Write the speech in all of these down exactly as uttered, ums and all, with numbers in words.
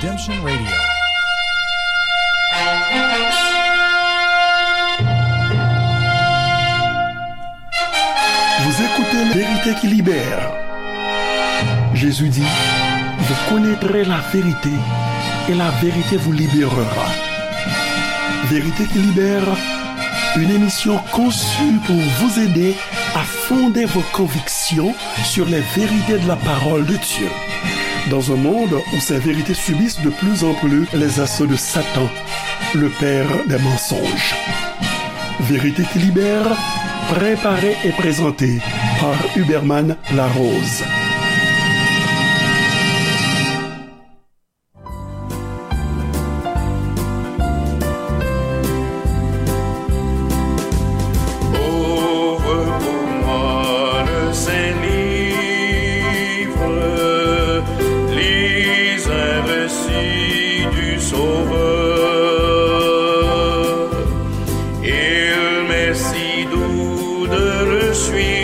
Redemption Radio. Vous écoutez Vérité qui libère. Jésus dit, vous connaîtrez la vérité et la vérité vous libérera. Vérité qui libère, une émission conçue pour vous aider à fonder vos convictions sur les vérités de la parole de Dieu. Dans un monde où ces vérités subissent de plus en plus les assauts de Satan, le père des mensonges. Vérité qui libère, préparée et présentée par Huberman Larose. Ouvre pour moi le saint livre, lis un récit du Sauveur. Il m'est si doux de le suivre,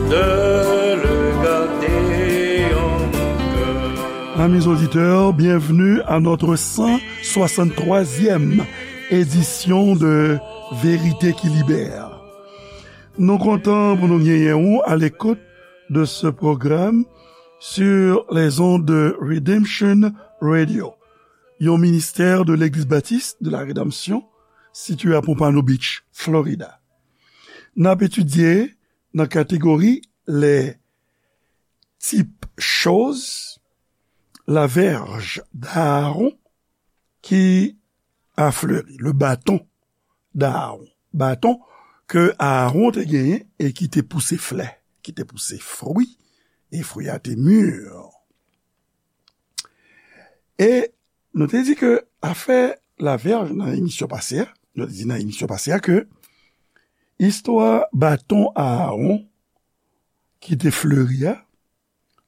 de le garder en mon cœur. Amis auditeurs, bienvenue à notre cent soixante-troisième édition de Vérité qui libère. Nou kontan pou nou genyen ou à l'écoute de ce programme sur les ondes de Redemption Radio, yon ministè de Legliz Batis de la Redanmsyon, sitiye a Pompano Beach, Florida. N ap etidye nan kategori les types choses, la verge d'Aaron qui a fleuri, le bâton d'Aaron. Baton ke Aaron te genyen e ki te pouse flè, ki te pouse fwi, e fwi a te mi. E nou te di ke afè lavèj nan emisyon pase a, nou te di nan emisyon pase a ke istwa baton Aaron ki te fleri a,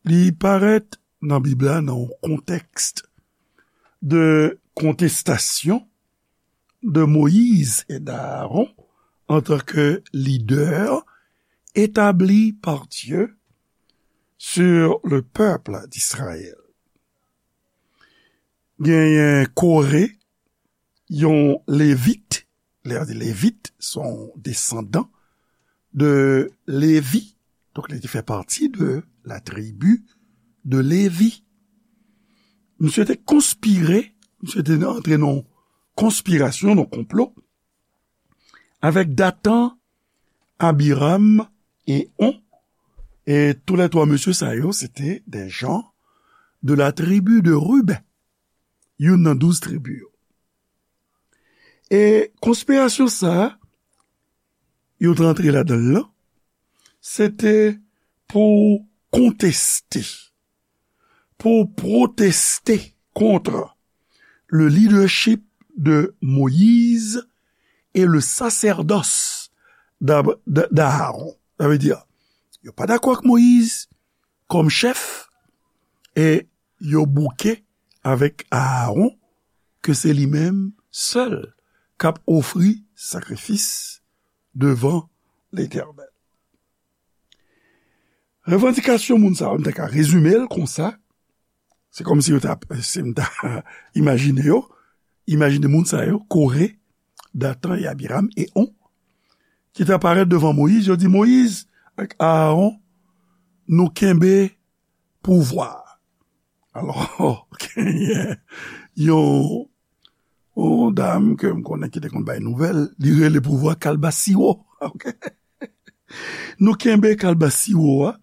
li parèt nan Bib la nan yon kontèks de kontestasyon de Moïse et d'Aaron en tant que leader établi par Dieu sur le peuple d'Israël. Genyen Kore, yon Levit, lè yo di Levit, se yon desandan de Levi. Donk, li te fè pati de la tribi de Levi. Misye te konspire, misye te antre nan konspirasyon, nan konplo, avèk Datan, Abiram e On. E tou lè twa mesye sa yo, se te de jan de la tribi de Riben, youn nan douz tribi yo. E konspirasyon sa a, yo t rantre ladan l lan, se te pou konteste, pou pwoteste kont le leadership de Moïse et le sacerdoce d'Ab-, d-, d'Aaron. Sa vle di, yo pa dakò ak Moyiz kòm chèf, e yo bouke avèk Aaron, ke se li menm sèl k ap ofri sakrifis devan Letènèl. Revandikasyon moun sa yo, m ta ka rezime l konsa, se kòmsi yo ta, si m ta imajine yo, imajine moun sa yo, Kore, Datan e Abiram e On, ki ta parèt devan Moyiz, yo di, Moyiz ak Aaron, nou kenbe pouvwa a. Alò, genyen yon, yon dam ke m konnen ki te konn bay nouvèl, li rele pouvwa kalbasiwo. Ok? Nou kenbe kalbasiwo a,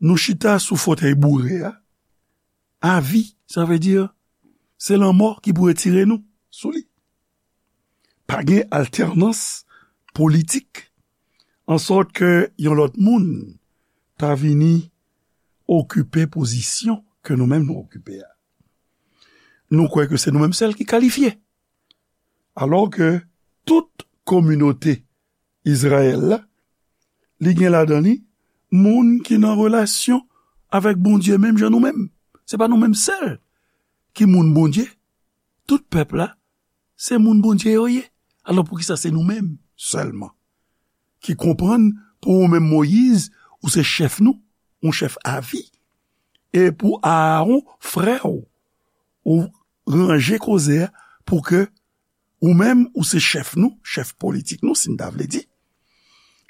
nou chita sou fotèy boure a, avi, sa vle di, se lanmò ki pou retire nou sou li. Pa gen altènans politik, ansòt ke yon lòt moun ta vini okipe pozisyon ke nou menm nou okipe a. Nou kwè ke se nou menm sèl ki kalifye. Alò ke tout kominote Izrayèl la, li gen ladan li moun ki nan relasyon avèk Bondye menm jan nou menm. Se pa nou menm sèl ki moun Bondye. Tout pèp la, se moun Bondye yo ye. Alò, poukisa se nou menm sèlman ki konprann pou ou menm Moyiz, ou se chèf nou, yon chèf avi, e pou Aaron, frè w, ou ranje koze a pou ke ou menm, ou se chèf nou, chèf politik nou, si n ta vle di.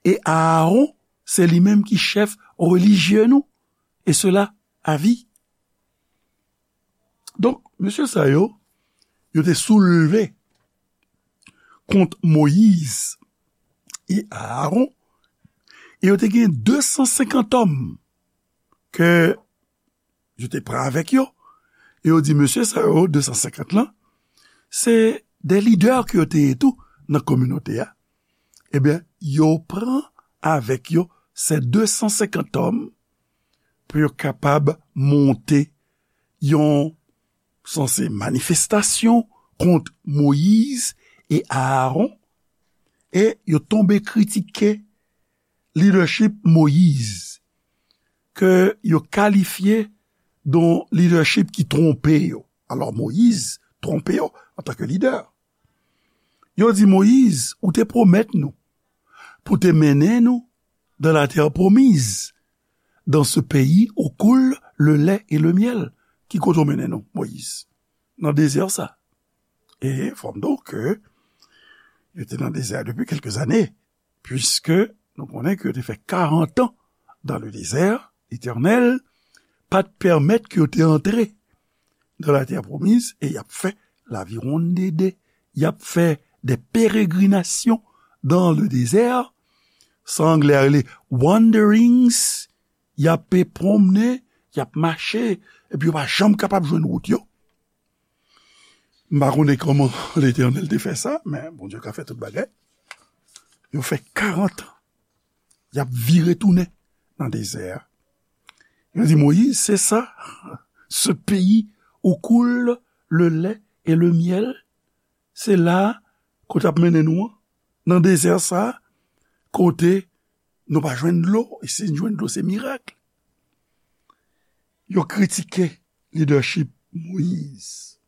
E Aaron, se li menm ki chèf relijye nou, e sela a vi. Donk, mesye sa yo, yo te soulve kont Moyiz e Aaron, e yo te gen de san senkant òm ke yo te pran avèk yo, e yo di, mesye sa yo, de san senkant lan, se de lidè ke yo te ye tou nan kominote a. Ebyen, yo pran avèk yo se de san senkant òm pou yo kapab monte yon sanse manifestasyon kont Moyiz e Aaron, e yo tonbe kritike lidèchip Moyiz, ke yo kalifye de yon lidèchip ki twonpe yo. Alò, Moyiz twonpe yo antanke lidè. Yo di, Moyiz, ou te pwomèt nou pou te mennen nou dans la terre promise, dans ce pays où coule le lait et le miel. Ki kote w mennen nou, Moyiz? Nan dezè sa. E fò m di w ke yo te nan dezè a depi kèlke zane, puiske nou konnen ke yo te fè karant an dans le désert, Letènèl pa t pèmèt ke yo te antre dans la terre promise, e y ap fè laviwonn dede, y ap fè de peregrinasyon dans le désert, sa anglè a rele wanderings, y ap pwonmne, y ap mache, epi yo pa janm kapab jwenn wout yo. M pa konnen kòman Letènèl te fè sa, men Bondye ka fè tout bagay. Yo fè karant an, y ap vire tounen nan dezè a. Yo di Moyiz, se sa, ce pays où coule le lait et le miel, se la kote ap mennen nou an, nan dezè sa, kote nou pa jwenn dlo, e si n jwenn dlo, se mirak. Yo kritike lidèchip Moyiz.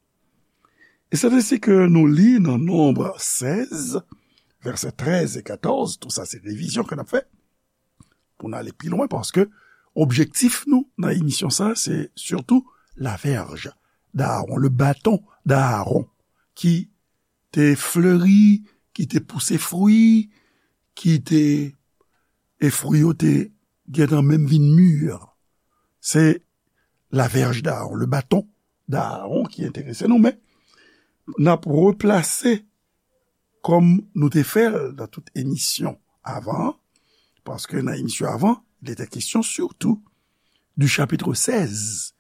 E se ensi ke nou li nan Nonb sèz, vèsè trèz e katòz, tou sa se revizyon ke n ap fè, pou n ale pi lwen, paske objektif nou nan emisyon sa, se sitou la verge d'Aaron, le bâton d'Aaron, ki te fleri, ki te pouse fwi, ki te, e fwi yo te gentan menm vin mi. Se la verge d'Aaron, le bâton d'Aaron ki enterese nou, men n ap replase kòm nou te fè l nan tout emisyon avan, paske nan emisyon avan, il était question surtout du chapitre seize,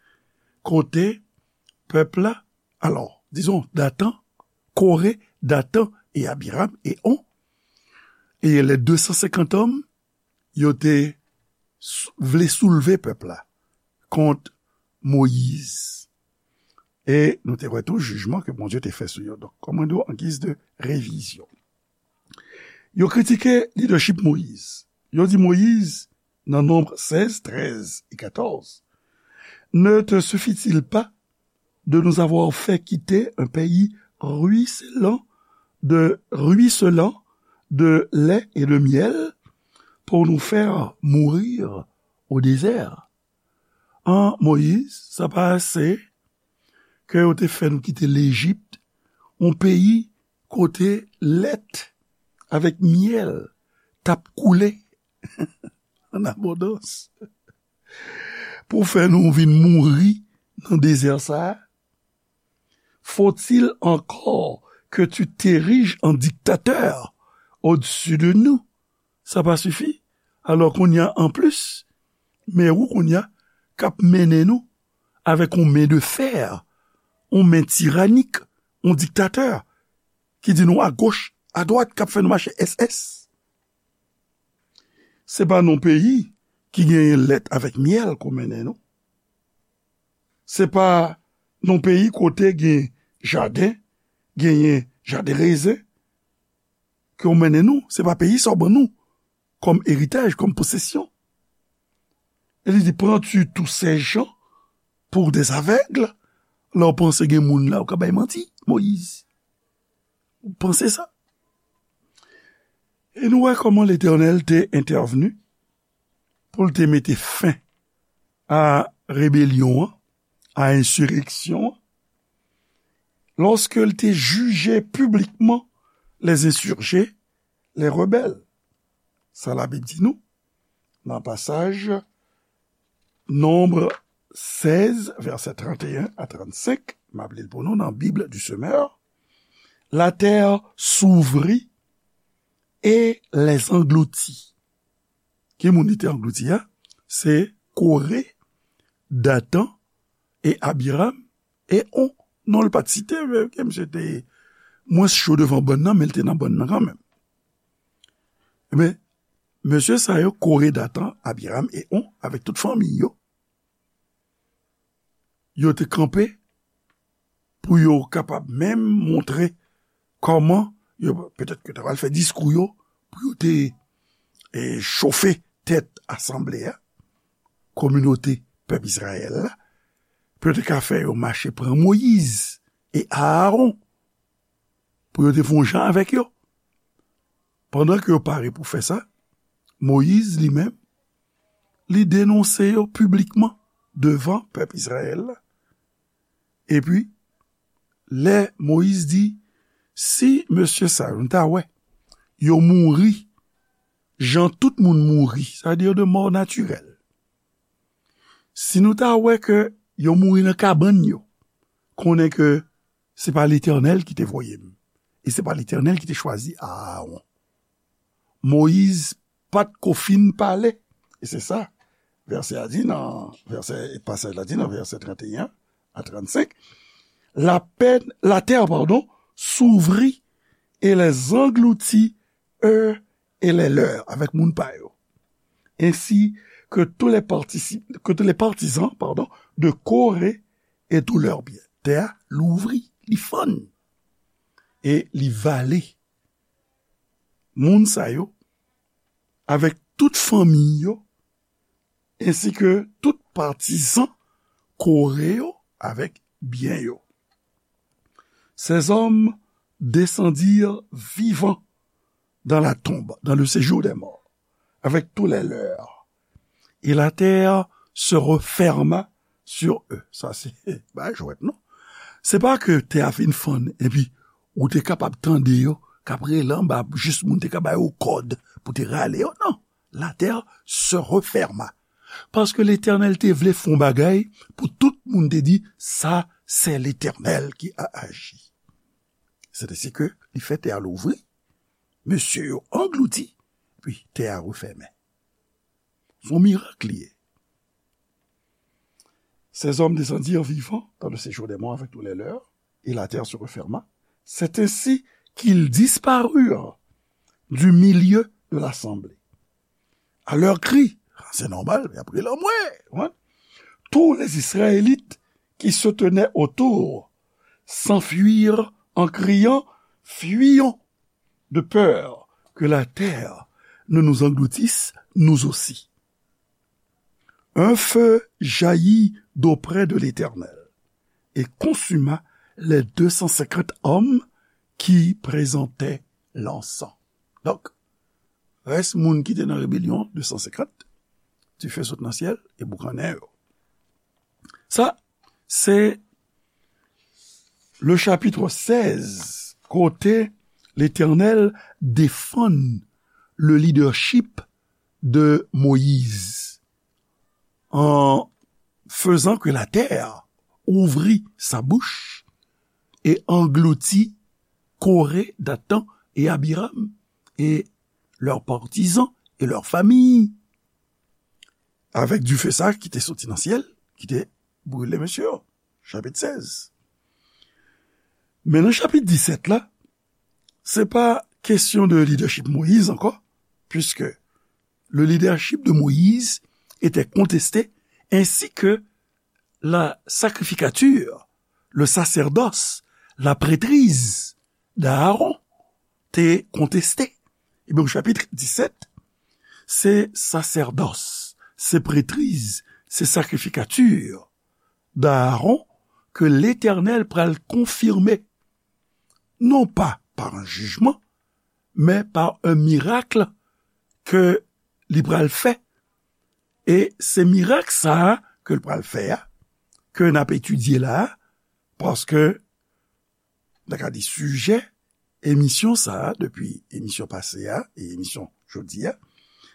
kote pèp la, alò, dizon, Datan, Kore, Datan e Abiram e On, e les deux cent cinquante hommes, yo te sou- vle soulve pèp la kont Moyiz. E nou te wè tou jijman ke Bondye te fè sou yo. Donk, kòm mwen di w, an giz de revizyon. Yo kritike lidèchip Moyiz. Yo di Moyiz, nan Nonb sèz, trèz e katòz, ne te suffit-il pas de nous avoir fait quitter un pays ruisselant de, ruisselant de lait et de miel pour nous faire mourir au désert? An, Moyiz, sa pa ase ke yo te fè nou kite Lejip, yon peyi kote lèt avèk myèl t ap koule an abondans, pou fè nou vin mouri nan dezè sa a? Faut-il encore que tu t'ériges en dictateur au-dessus de nous? Sa pa sifi? Alò, kounye a, anplis, men ou kounye a k ap mennen nou avèk yon men de fè, yon men tiranik, yon diktatè ki di nou agoch, adwat, k ap fè nou mache S S. Se pa nan peyi ki genyen lèt avèk myèl ke w mennen nou. Se pa nan peyi kote gen jaden, genyen jaden rezen ke w mennen nou. Se pa peyi sa w ban nou kòm eritaj, kòm posesyon. E li di, prends-tu tous ces gens pour des aveugles? Lè w panse gen moun la, ou ka bay manti, Moyiz. Ou panse sa? E nou wè kòman Letènèl te entèvni pou l te mete fen a rebelyon an, a ensireksyon an, lorsque il te jugeait publiquement les insurgés, les rebelles. Sa Labib di nou nan pasaj Nonb sèz, vèsè trannteyen a trannsenk, m ap li l pou nou nan Bible du Semeur. La terre s'ouvrit et les engloutit. Ki moun li te anglouti a? Se Koré, Datan e Abiram e On. Non, l pa t site, men ke misye te mwens cho devan bòn nan, men l te nan bòn nan kanmenm. Ebyen, mesye sa yo, Koré, Datan, Abiram e On, avèk tout fanmi yo, yo te kanpe pou yo kapab menm montre kòman yo, petèt ke yo ta pral fè diskou yo, pou yo te, e, chofe tèt asanble a, kominote pèp Izrayèl la, pou yo te ka fè yo mache pran Moyiz e Aaron, pou yo te fè yon jan avèk yo. Pandan ke yo pare pou fè sa, Moyiz li menm, li denonse yo piblikman devan pèp Izrayèl la. Epi, lè Moyiz di, si mesye sa yo, nou ta wè, yo mouri jan tout moun mouri, sa vle di de mò natirèl. Si nou ta wè ke yo mouri nan kabann yo, konnen ke se pa Letènèl ki te voye m, e se pa Letènèl ki te chwazi Aaron. Moyiz pa t ko fin pale. E se sa, vèsè a di nan, vèsè, pasaj la di nan vèsè trannteyen a trannsenk, la peine, la terre, pardon, s'ouvrit et les engloutit, eux et les leurs, avec moun pa yo. Ainsi que tous les participants, que tous les partisans, pardon, de Corée et tous leurs biens. Tè a louvri, li fann, e li vale moun sa yo avèk tout fanmi yo, ensi ke tout patizan Kore yo avèk byen yo. Ces hommes descendirent vivants dans la tombe, dans le séjour des morts, avec tous les leurs. Et la terre se referma sur eux. Sa se, ba jwèt non. Se pa ke tè a fin fann, epi ou te kapab tande yo k ap rele anba, jis moun te ka ba yo kòd pou te rale yo. Non. La terre se referma. Paske Letènèl te vle fè yon bagay pou tout moun te di, sa se Letènèl ki a aji. Se te si ke li fè tè a louvri, mesye yo anglouti, epi tè a refèmen. Se yon mirak li ye. Ces hommes descendirent vivants dans le séjour des morts avec tous les leurs, et la terre se referma. C'est ainsi qu'ils disparurent du milieu de l'assemblée. À leur cri, c'est normal, mais après la mouè, hein, tous les Israélites qui se tenaient autour s'enfuirent en criant, fuyons de peur que la terre ne nous engloutisse, nous aussi. Un feu jaillit d'auprès de l'Éternel et consuma les deux cent cinquante hommes qui présentaient l'encens. Donk, rès moun ki te nan rebelyon, de san senkant, dife sot nan syèl e boukannen yo. Sa, se le chapitre seize, kote Letènèl defann le leadership de Moïse, en faisant que la terre ouvrit sa bouche et engloutit Corée, Dathan et Abiram et leurs partisans et leurs familles. Avèk dife sa ki te soti nan syèl, ki te brile mesye yo. Chapit sèz. Men nan chapit disèt la, se pa kesyon de leadership Moïse ankò, puisque le leadership de Moïse était contesté, ainsi que la sacrificature, le sacerdoce, la prêtrise d'Aaron te konteste. Ebyen, chapit disèt, se sasèdòs, se prètriz, se sacrificature d'Aaron ke Letènèl pral konfime, non pa pa yon jijman, men pa yon mirak ke li pral fè. E se mirak sa a ke l pral fè a, ke n ap etidye la a, paske, n ta ka di, sijè emisyon sa a, depi emisyon pase a e emisyon jodi a,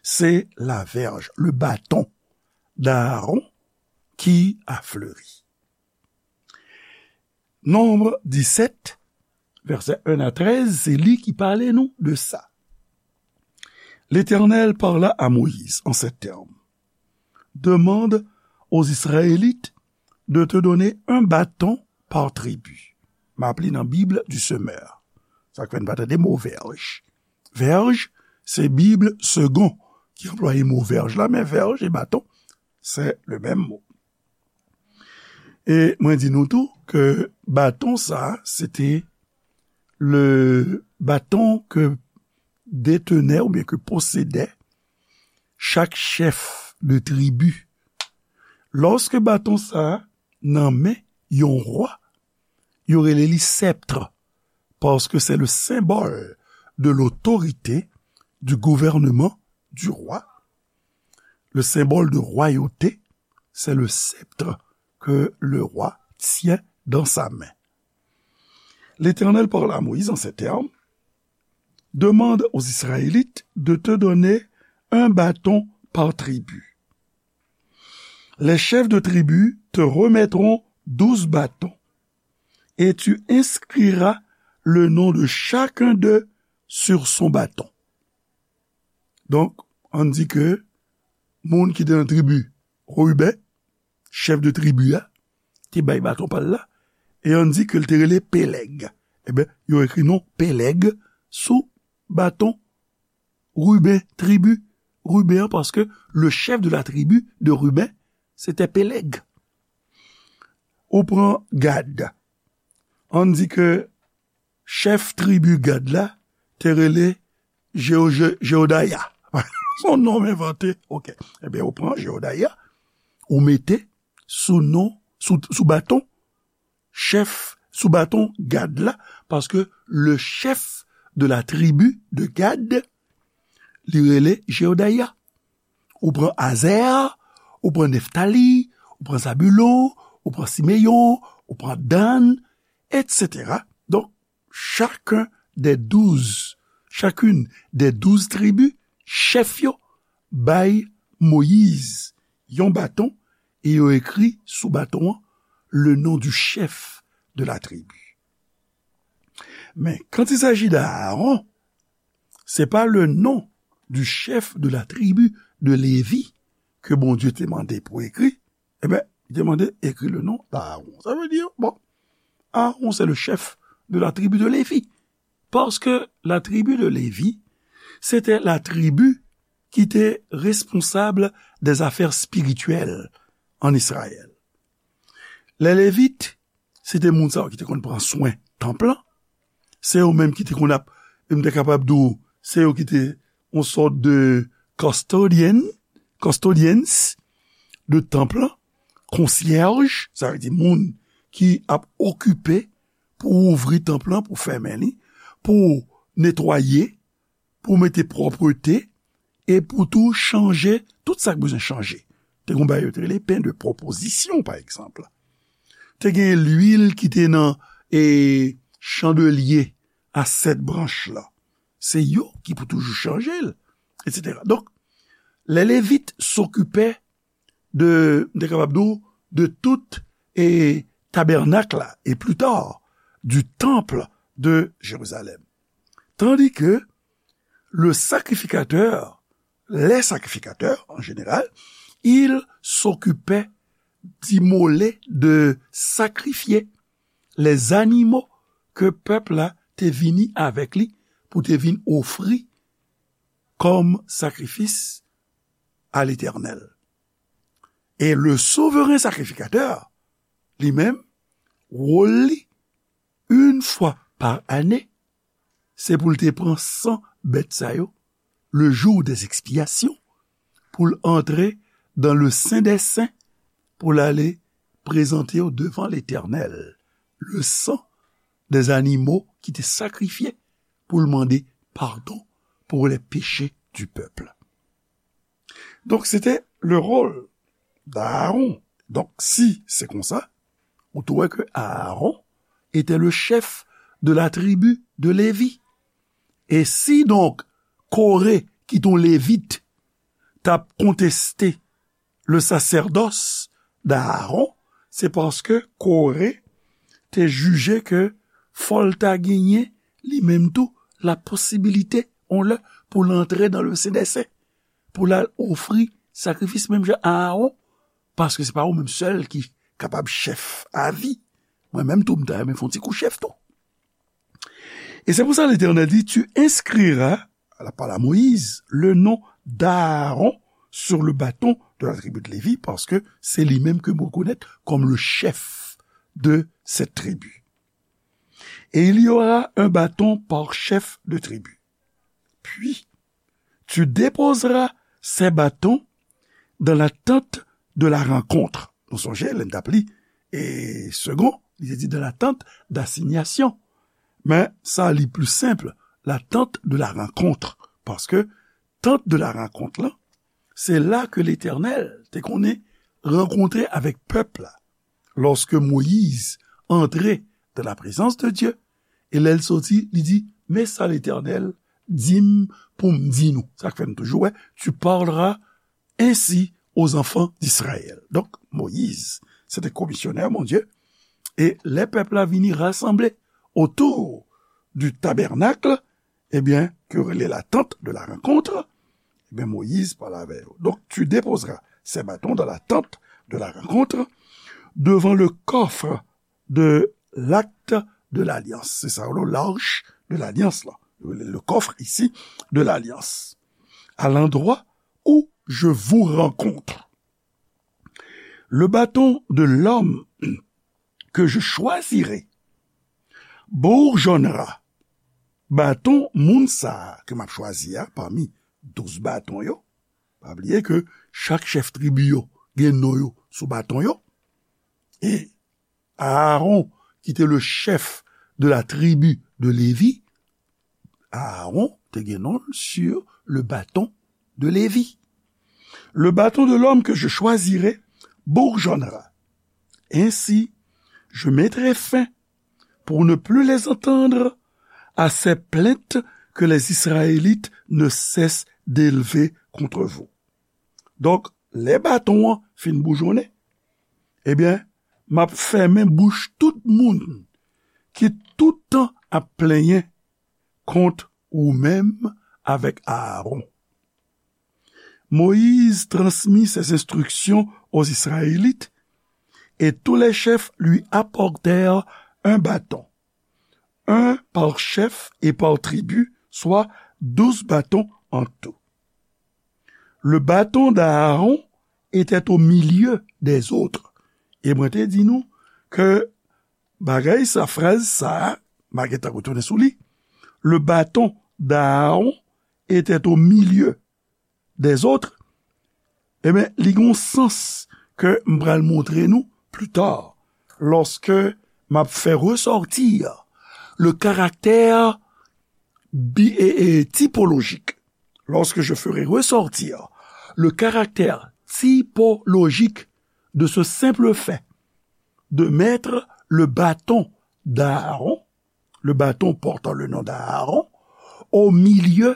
se la verge, le bâton d'Aaron qui a fleuri. Nonb disèt, vèsè en a trèz, se li ki pale nou de sa. L'Éternel parla à Moïse en ces termes. Demande aux Israélites de te donner un bâton par tribu. M ap li nan Bib du Semeur. Sa k fè n pa tande mo vèj. Vèj, se Bib Segond ki anplwaye mo vèj la, men vèj e baton, se le menm mo. E mwen di nou tou ke baton sa, se te le baton ke detenait oubyen ke posede chak chèf de tribi. Lòske baton sa nan men yon wa, yo rele li sèpt, paske se le symbole de l'autorité, du gouvernement du roi. Le symbole de royauté, c'est le sceptre que le roi tient dans sa main. L'Éternel parla à Moïse en ces termes, demande aux Israélites de te donner un bâton par tribu. Les chefs de tribu te remettront douze bâtons et tu inscriras le nom de chacun d'eux sur son bâton. Donk, ann di ke moun ki te nan tribi Riben, chèf de tribi a, te bay baton pa l la, e ann di ke l te rele Pelèg. Ebyen, yo ekri non Pelèg sou baton Riben, tribi Riben an, paske le chef de la tribu de Ruben, se te Pelèg. Ou pran Gad. Ann di ke chèf tribi Gad la te rele Jeo-, Je-, Jeodaya. Se yon non m envante. Ok. Ebyen, ou pran Jeodaya, ou mete sou non, sou, sou baton chèf, sou baton Gad la, paske le chef de la tribu de Gad, li rele Jeodaya. Ou pran Azè, ou pran Neftali, ou pran Zabulon, ou pran Simeyon, ou pran Dan, et cetera. Donk, chacun des douze, chacune des douze tribus, chèf yo bay Moyiz yon baton e yo ekri sou baton an le nom du chef de la tribu. Men, quand il s'agit d'Aaron, c'est pas le nom du chef de la tribu de Lévi que Bondye te mande pou ekri, ebyen, li te mande ekri le nom d'Aaron. Sa vle di, bon, Aaron, c'est le chef de la tribu de Lévi. Parce que la tribu de Lévi, c'était la tribu qui était responsable des affaires spirituelles en Israël. Les Lévites, se te moun sa yo ki te konn pran swen tanp lan. Se yo menm ki te konn ap, m te kapab di w, se yo ki te yon sòt de custodian, custodians de tanp lan, konsyèj, sa vle di moun ki ap okipe pou ouvri tanp lan, pou fèmen li, pou netwaye, pou mete pwòpte, e pou tou chanje tout sa k bezwen chanje. Te gen yon bagay yo te rele pen de pwopozisyon, pa egzanp. Te gen lwil ki te nan, e, chandelye a sèt branch la. Se yo ki pou toujou chanje l, et cetera. Donk, les Lévites s'occupaient de, m te kapab di w, de tout, e, tabènak la, et plus tard, du temple de Jérusalem. Tandis que le sacrificateur, les sacrificateurs en général, ils s'occupaient d'immoler, de sacrifier les animaux que pèp la te vini avèk li pou te vin ofri kòm sakrifis a Letènèl. E le souvren sakrifikatè, li menm, wòl li, yon fwa pa ane, se pou l te pran san bèt sa yo, le jour des expiations, pou l antre dans le Saint des Saints, pou l ale prezante yo devan Letènèl, le sang des animaux ki te sakrifye pou l mande padon pour les péchés du peuple. Donk, se te le rôle d'Aaron Donk, si se konsa, ou tou wè ke Aaron était le chef de la tribu de Lévi. E si donk Koré, ki t on Levit, t ap konteste le sacerdoce d'Aaron, se paske Koré te jije ke fò l ta genyen li menm tou la posibilite, on lè, pou l antre nan le Sen dè Sen, pou l al ofri sakrifis menm jan Aaron, paske se pa ou menm sèl ki kapab chèf avi. Mwen menm tou, m ta renmen fè on ti kou chèf tou. Et c'est pour ça l'Éternel dit, tu inscriras, la parle à Moïse, le nom d'Aaron sur le bâton de la tribu de Lévi, paske se li menm ke m rekonèt kòm le chef de cette tribu. Et il y aura un bâton par chef de tribu. Puis, tu déposeras ces bâtons dans la tente de la rencontre. Nou sonje, lè n t ap li, e segon, li te di dans la tente d'assignation. Men sa li pli senp, la tente de la rencontre. Paske tente de la rencontre la, se la ke Letènèl te konnen rankontre avèk pèp la. Lorsque Moïse entrait dans la présence de Dieu, e lè l soti, li di, men sa Letènèl di m pou m di nou. Sa k fè n toujou wè, tu parleras ainsi aux enfants d'Israël. Donk, Moïse, se te komisyonè Bondye, e lè pèp la vini rasanble otou du tabènak, ebyen, ke yo rele la tente de la rencontre, ebyen, Moïse pale avè yo. Donc, tu déposeras ces bâtons dans la tente de la rencontre, devant le coffre de l'acte de l'alliance. Se sa, le l'arche de l'alliance, là. Le, le coffre ici de l'alliance. À l'endroit où je vous rencontre. Le bâton de l'homme que je choisirai bourgeonnera. Baton moun sa a ke m ap chwazi a, pami douz baton yo, pa bliye ke chak chèf tribi yo gen non yo sou baton yo. E Aaron, ki te le chef de la tribu de Lévi, Aaron te gen non l sur le bâton de Lévi. Le bâton de l'homme que je choisirai bourgeonnera. Ainsi, je mettrai fin, pour ne plus les entendre, à ces plaintes que les Israélites ne cessent d'élever contre vous. Donk, lè baton an fin boujonnen, ebyen, m ap fèmen bouch tout moun ki tout tan ap plenyen kont ou menm avèk Aaron. Moïse transmit ces instructions aux Israélites, et tous les chefs lui apportèrent un bâton, un par chef et par tribu, soit douze bâtons en tout. Le bâton d'Aaron était au milieu des autres. E mwen te di nou ke bagay sa, fraz sa, m a gentan retounen sou li. Le bâton d'Aaron était au milieu des autres. Ebyen, li gen yon sans ke m pral montre nou pli ta, lorsque m ap fè ressortir le caractère bi-, et, et typologique. Lorsque je ferai ressortir le caractère typologique de ce simple fait de mettre le bâton d'Aaron, le bâton portant le nom d'Aaron, au milieu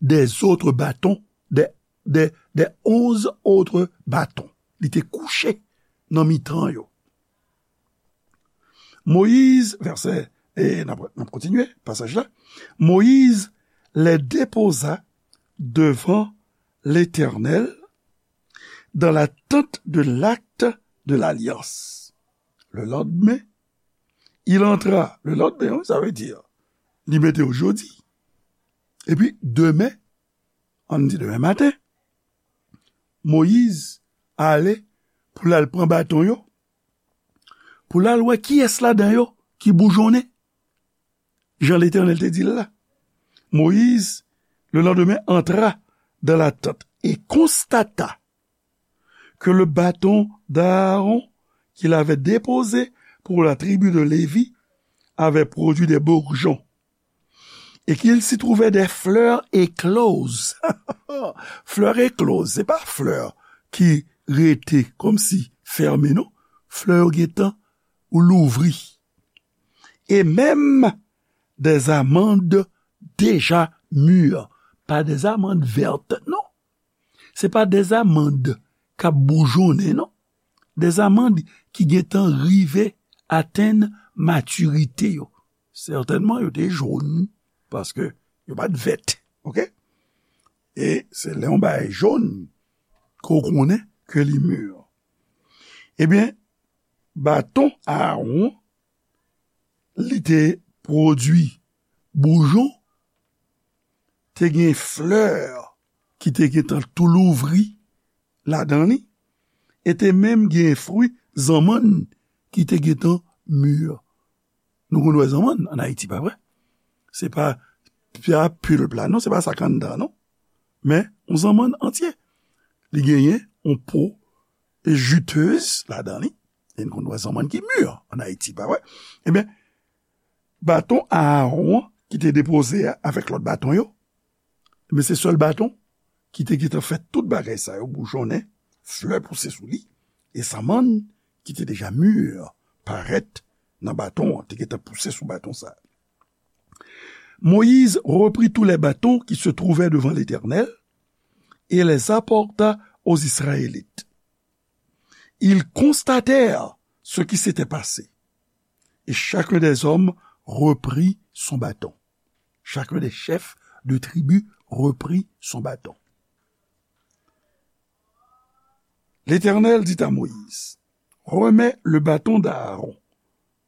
des autres bâtons, des, des, des onze autres bâtons. Li te kouche nan mitan yo. Moïse, vèsè, e n ap, n ap kontinye pasaj la. Moïse les déposa devant l'Éternel dans la tente de l'acte de l'alliance. Le lendemain, il entra. Le lendemain, wi, sa vle di, li mete yo jodi. Epi, demen, ann di demen maten, Moyiz ale pou l al pran baton yo, pou l al wè kiyès ladan yo ki boujonnen, jan Letènèl te di l la. Moïse, le lendemain, entra dans la tente et constata que le bâton d'Aaron qu'il avait déposé pour la tribu de Lévi avait produit des bourgeons et qu'il s'y trouvait des fleurs écloses. Fleurs écloses, se pa flè ki rete kòmsi fèmen, non. Flè yo gentan louvri. Et même des amandes déjà mûres. Pa des amandes vertes, non. Se pa des amandes k ap boujonnen, non. Des amandes ki gentan rive atenn matirite yo. Sètènman, yo te jòn, paske yo pa t vèt, oke? E se lè yon bagay jòn ke w konnen ke li mûr. Ebyen, baton Aawon, li te pwodui boujon, te gen flè ki te gentan tou louvri ladan li, e te menm gen fwi zanmann ki te gentan mûr. Nou konn wè zanmann ann Ayiti, pa vre? Se pa, pa pulp la, non, se pa sa k anndan, non. Men, yon zanmann antye. Li genyen yon po jutez ladan li. E nou konn wè zanmann ki mûr ann Ayiti, pa vre? Ebyen, baton Aawon ki te depoze a avèk lòt baton yo, ebyen, se sèl baton ki te gentan fè tout bagay sa yo boujonnen, flè pouse sou li, e zanmann ki te deja mûr parèt nan baton an, te gentan pouse sou baton sa. Moïse reprit tous les bâtons qui se trouvaient devant l'Éternel et les apporta aux Israélites. Ils constatèrent ce qui s'était passé. Et chacun des hommes reprit son bâton. Chacun des chefs de tribu reprit son bâton. L'Éternel dit à Moïse, remets le bâton d'Aaron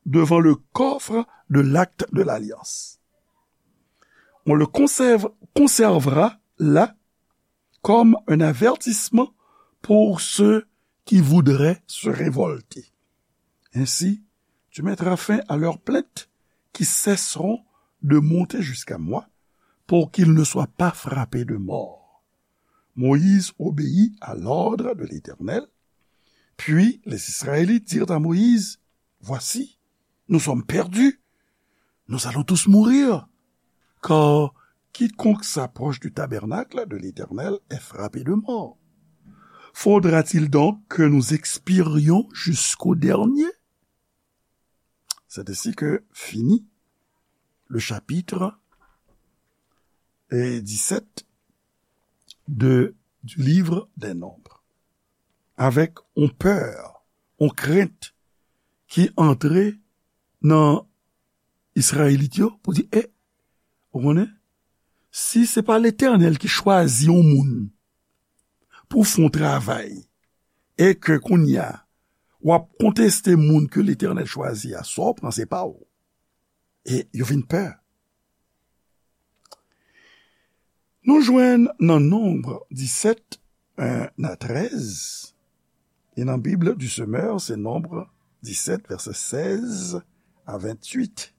devant le coffre de l'acte de l'alliance. On le conserve, conservera là comme un avertissement pour ceux qui voudraient se révolter. Ainsi, tu mettras fin à leurs plaintes qui cesseront de monter jusqu'à moi, pour qu'ils ne soient pas frappés de mort. Moïse obéit à l'ordre de l'Éternel. Puis les Israélites dirent à Moïse, voici, nous sommes perdus. Nous allons tous mourir, car quiconque s'approche du tabernacle de l'Éternel est frappé de mort. Faudra-t-il donc que nous expirions jusqu'au dernier? C'est ainsi que finit le chapitre, eh, dix-sept de, du livre des Nombres. Avèk yon pè, yon krent ki antre nan Izrayelit yo pou di, e, ou konnen, si se pa Letènèl ki chwazi yon moun pou fè yon travay, e ke kounye a, w ap konteste moun ke Letènèl chwazi a, sa w pran se pa w. E yo vin pè. Nou jwenn nan Nonb disèt, en a trèz, e nan Bib du Semeur, se Nonb disèt, vèsè sèz a venntuit.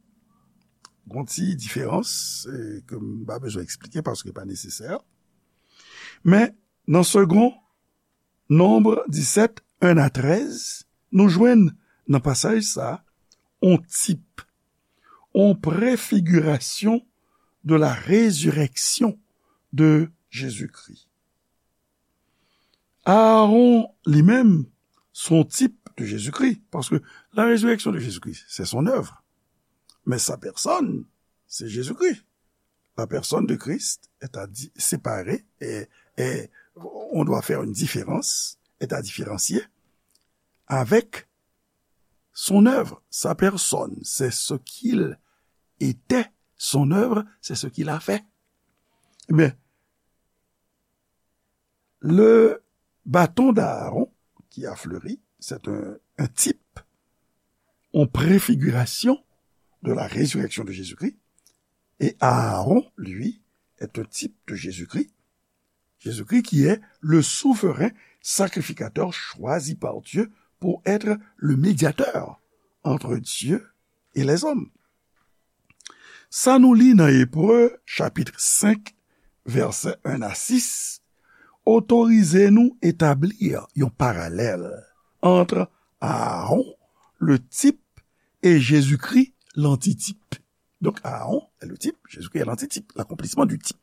Gon ti diferans, e, ke m pa bezwen eksplike paske pa nesesè. Men, nan Segond Nonb disèt, en a trèz, nou jwenn nan pasaj sa a, on tip, on prefigirasyon de la résurrection de Jésus-Christ. Aaron li menm, se yon tip de Jezikri, paske la résurrection de Jésus-Christ, c'est son œuvre. Mais sa personne, c'est Jésus-Christ. La personne de Christ est à di-, séparer et, et on doit faire une différence, est à différencier avec son œuvre, sa personne, c'est ce qu'il était, son œuvre, c'est ce qu'il a fait. Ebyen, le bâton d'Aaron qui a fleuri, c'est un, un type, une préfiguration de la résurrection de Jésus-Christ. Et Aaron, lui, est un type de Jésus-Christ. Jésus-Christ qui est le souverain sacrificateur choisi par Dieu pour être le médiateur entre Dieu et les hommes. Sa nou li nan Ebre, chapit senk, vèsè en a sis, otorize nou etabli yon paralèl ant Aaron, le type, e Jezikri, l'antitype. Donc, Aaron est le type, Jésus-Christ est l'antitype, l'accomplissement du type.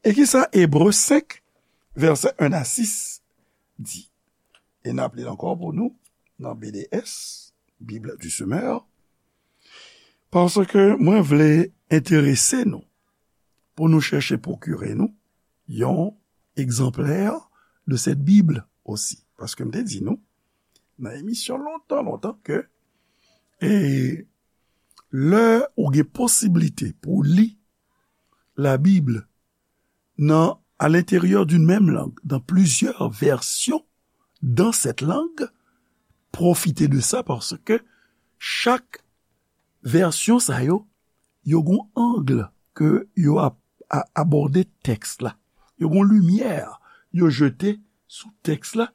E kisa Ebre senk, vèsè en a sis di? e n ap li l ankò pou nou nan B D S, Bible du Semeur, paske mwen vle enterese nou pou nou chèche pwokire nou yon egzanplè de cette Bible aussi. Paske m te di nou nan emisyon lontan, lontan ke, e, lè ou gen posiblite pou w li Labib nan, à l'intérieur d'une même langue, dans plusieurs versions dans cette langue, pwofite de sa paske chak vèsyon sa yo, yo gon ang ke yo ap a- abòde tèks la. Yo gon limyè yo jete sou tèks la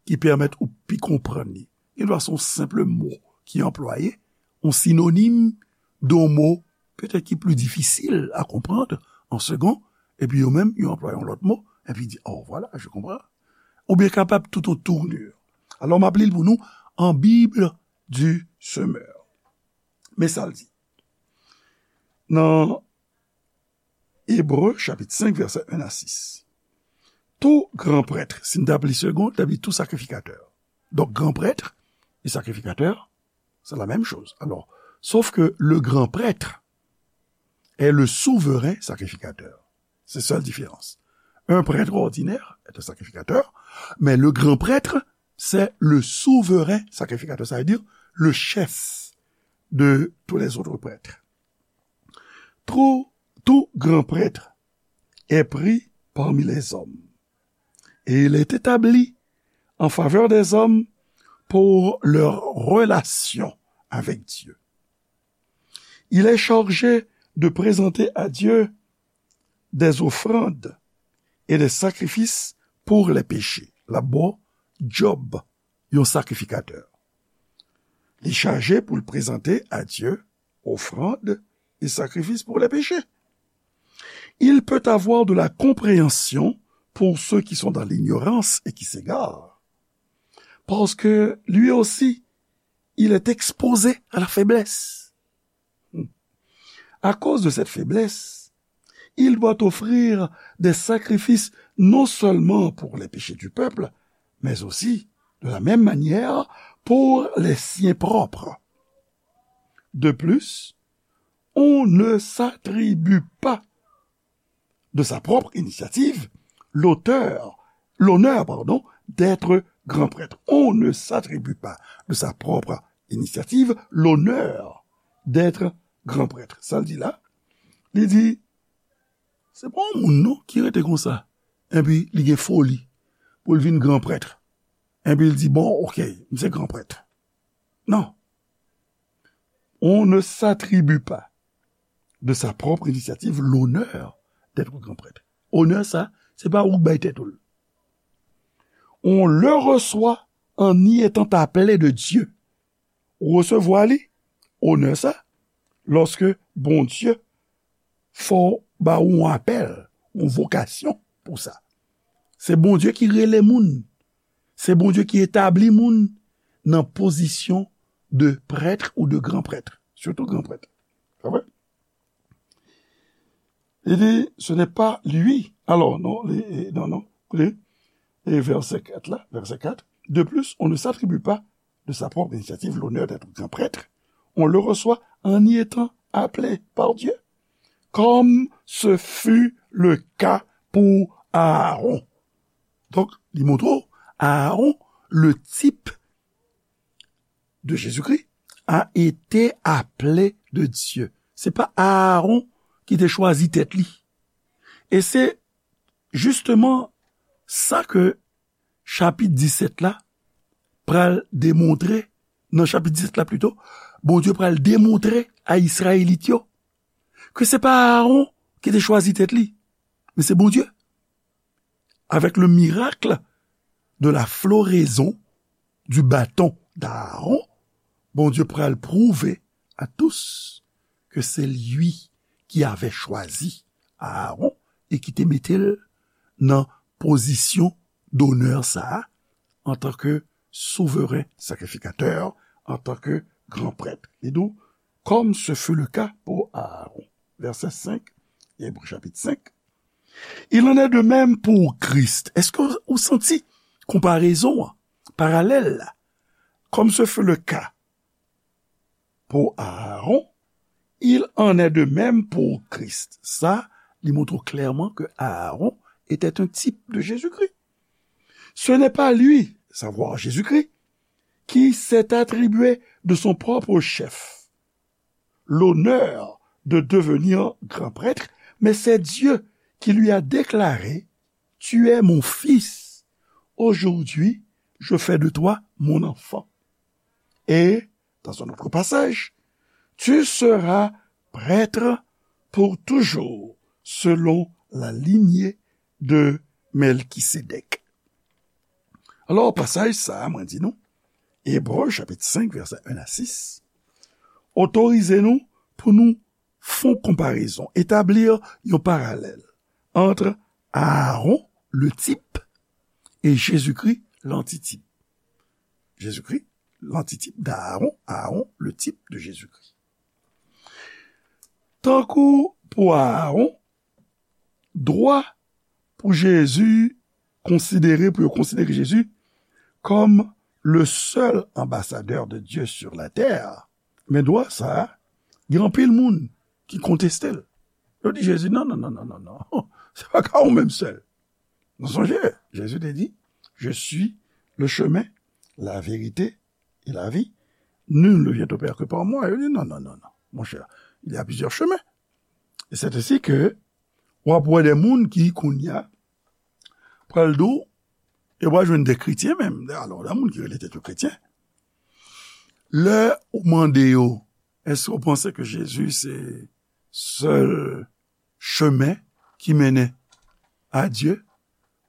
ki pèmèt ou pi konprann li. Li dwa se yon senp mo ki anplwaye, yon sinonim de yon mo petèt ki pli difisil a konprann an segon, epi yo menm yo anplwaye yon lòt mo, epi di, oh, voilà, je comprends. Oubyen kapab tout yon tournure. Alò, m ap li l pou nou an Bible du Semeur. Men sa l di. Nan Ebre, chapit senk, vèsè en a sis. Tout grand prêtre, si n t ap li segon, n t ap di tout sacrificateur. Donc, grand prêtre et sacrificateur, c'est la même chose. Alors, sauf que le grand prêtre est le souverain sacrificateur. C'est ça la différence. Un prêtre ordinaire est un sacrificateur, mais le grand prêtre, c'est le souverain sacrificateur, ça veut dire le chef de tous les autres prêtres. Tout, tout grand prêtre est pris parmi les hommes, et il est établi en faveur des hommes pour leur relation avec Dieu. Il est chargé de présenter à Dieu des offrandes et des sacrifices pour les péchés. L ap ba w djòb yon sakrifikatè. Li chaje pou l prezante à Dieu offrande et sacrifice pour les péchés. Il peut avoir de la compréhension pour ceux qui sont dans l'ignorance et qui s'égarent, parce que lui aussi, il est exposé à la faiblesse. À cause de cette faiblesse, il doit offrir des sacrifices non seulement pour les péchés du peuple, mais aussi, de la même manière, pour les siens propres. De plus, on ne s'attribue pas de sa propre initiative l'auteur, l'honneur, pardon, d'être grand prêtre. On ne s'attribue pas de sa propre initiative l'honneur d'être grand prêtre. Sa l di la, li di, se pa yon moun non ki rete konsa, epi li gen foli pou l vin gran prèt, epi l di, bon, ok, m se gran prèt. Non. On ne s'attribue pas de sa propre initiative l'honneur d'être grand prêtre. Onè sa, se pa ou k bay tèt ou l. On le reçoit en y étant appelé de Dieu. Ou resevwa li, onè sa, lòske Bondye fè w, ba ou yon apèl, yon vokasyon pou sa. Se Bondye ki rele moun. Se Bondye ki etabli moun nan pozisyon de prêtre ou de grand prêtre. Surtout grand prêtre. Sa vre? Li di, ce n'est pas lui. Alors, non, li, non, non, li, e vèsè kat la, vèsè kat. De plus, on ne s'attribue pas de sa propre initiative l'honneur d'être grand prêtre. On le reçoit en y étant appelé par Dieu, comme ce fut le cas pour Aaron. Donk, li montre w, Aaron, le type de Jésus-Christ, a été appelé de Dieu. Se pa Aaron ki te chwazi tèt li. E se jisteman sa ke chapit disèt la pral demontre, nan chapit disèt la pito, Bondye pral demontre a Izrayelit yo ke se pa Aaron ki te chwazi tèt li, men se Bondye. Avec le miracle de la floraison du bâton d'Aaron, Bondye pral pwouve à tous que c'est lui qui avait choisi Aaron e ki te mete l nan pozisyon donè sa a, antanke souveren sakrifikatè, antanke gran prèt. Li di w, comme ce fut le cas pour Aaron. Vèsè senk, Ebre chapit senk. Il en est de même pour Christ. Èske w santi konparezon an? parallèle-là, comme ce fut le cas pour Aaron, il en est de même pour Christ. Sa, li montre clairement que Aaron était un type de Jésus-Christ. Ce n'est pas lui, savoir Jésus-Christ, qui s'est attribué de son propre chef l'honneur de devenir grand prêtre, mais c'est Dieu qui lui a déclaré : « Tu es mon fils, aujourd'hui je fais de toi mon enfant. » Et, dans un autre passage, « Tu seras prêtre pour toujours, selon la lignée de Melchisédek. » Alò, pasaj sa a, mwen di nou, Ebre, chapit senk, vèsè en a sis, otorize nou pou nou fè yon konparezon, etablir yon paralèl entre Aaron, le type, et Jésus-Christ, l'antitype. Jésus-Christ, l'antitype d'Aaron, Aaron, le type de Jésus-Christ. Tankou pou Aaron, dwa pou Jezi konsidere, pou yo konsidere Jezi kòm le seul ambassadeur de Dieu sur la terre. Men dwa sa a, gen anpil moun ki konteste l. Yo di Jezi, non, non, non, non, non, non. Se pa ka ou menm sèl. Nou sonje, Jezi te di, « Je suis le chemin, la vérité et la vie. Nul ne vient au Père que par moi. » Yo di, non, non, non, non. Mon cher, il y a plusieurs chemins. Et c'est ainsi que w ap wè de moun ki kounye a pral di w, e w a jwenn de kretyen menm, alò, de moun ki rele tèt yo kretyen. Lè ou mande yo, èske w panse ke Jezi se sèl chemen ki mennen a Dye?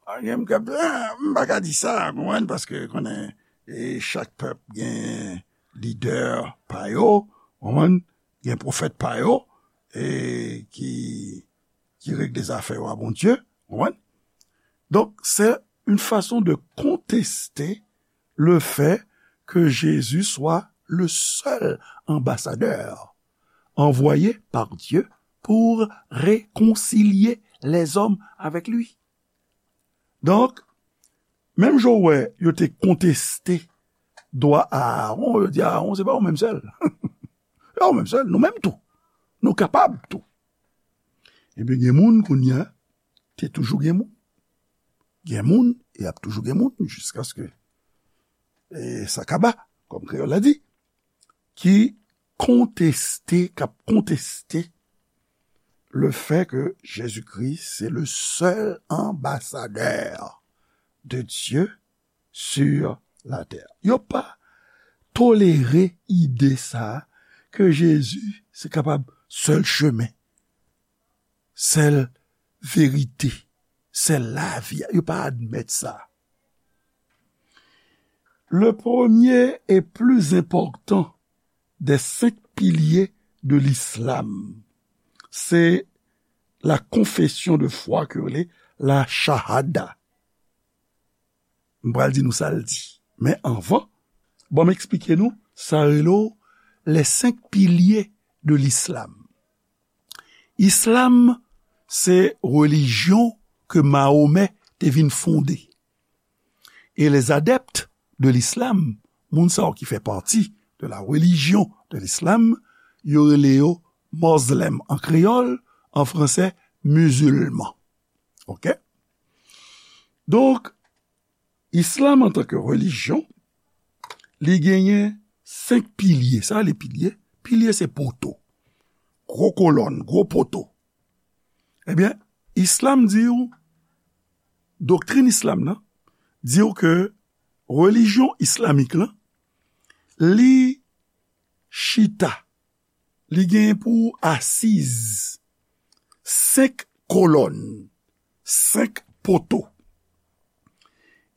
A, gen m k ap, a, m pa ka di sa, konprann, paske konnen, e, chak pèp gen lidè pa yo, konprann, gen pwofèt pa yo, e, ki, ki regle zafè yo a Bondye, konprann. Donk, c'est une façon de contester le fait que Jésus soit le seul ambassadeur envoyé par Dieu pour réconcilier les hommes avec lui. Donk, menm jan w wè yo te konteste dwa Aaron, yo di Aaron, se pa ou menm sèl. Se pa ou menm sèl, nou menm tou. Nou kapab tou. Ebyen, gen moun kounye a, te toujou gen moun. Gen moun, e ap toujou gen moun, jiskaske, e, sa kaba, kòm kreyòl la di, ki konteste, k ap konteste le fait que Jésus-Christ, c'est le seul ambassadeur de Dieu sur la terre. Yo pa tolere ide sa a ke Jezi se kapab sèl chemen, sèl verite, sèl lavi a. Yo pa admèt sa. Le premier et plus important des cinq piliers de l'islam, c'est la confession de foi ke yo rele la shahada. M pral di nou sa l di. Men anvan, ban m eksplike nou sa rele w les cinq piliers de l'islam. Islam, se relijyon ke Mahomè te vin fonde. E les adeptes de l'islam, moun sa yo ki fè pati de la religion de l'islam, yo rele yo mozlèm an kreyòl, an fransè, mizilman. Oke? Donk, islam antanke relijyon, li genyen senk pilye. Sa rele pilye? Pilye se poto. Gwo kolòn, gwo poto. Ebyen, islam di w, doktrin islam nan, di w ke relijyon islamik lan, li chita, li genyen pou asiz senk kolòn, senk poto.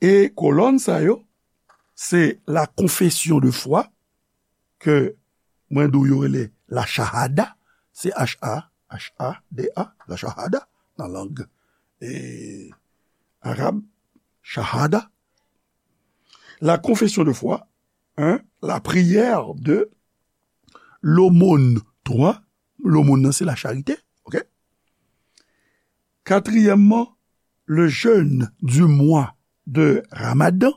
E kolòn sa yo, se la confession de foi, ke mwen di w yo rele la shahada, se H A, H A D A, la shahada, nan lang, e, arab, shahada. La confession de foi, hein, la prière de, l'aumône, twa, l'aumône nan se la charité, oke? Katriyèmman, le jeûne du mois de Ramadan,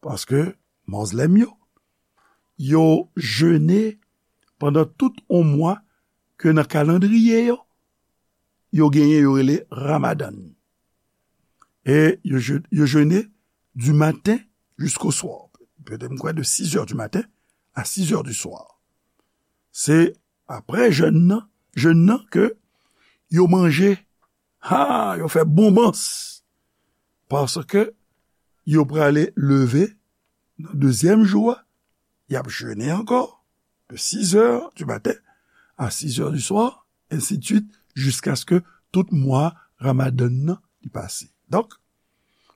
Paske Mozlèm yo, yo jene pandan tout yon mwa ke nan kalandriye yo, yo genyen, yo rele Ramadan. E yo je-, yo jene du matin jusqu'au soir. Petèt, m kwè, de six heures du matin à six heures du soir. Se apre jèn nan, jèn nan ke yo manje, ha, yo fè bonbans. Paske yo prale leve nan dezyèm jou a, y ap jene ankò, de six heures du matin à six heures du soir, ainsi de suite, jiskaske tout mwa Ramadan nan li pase. Donk,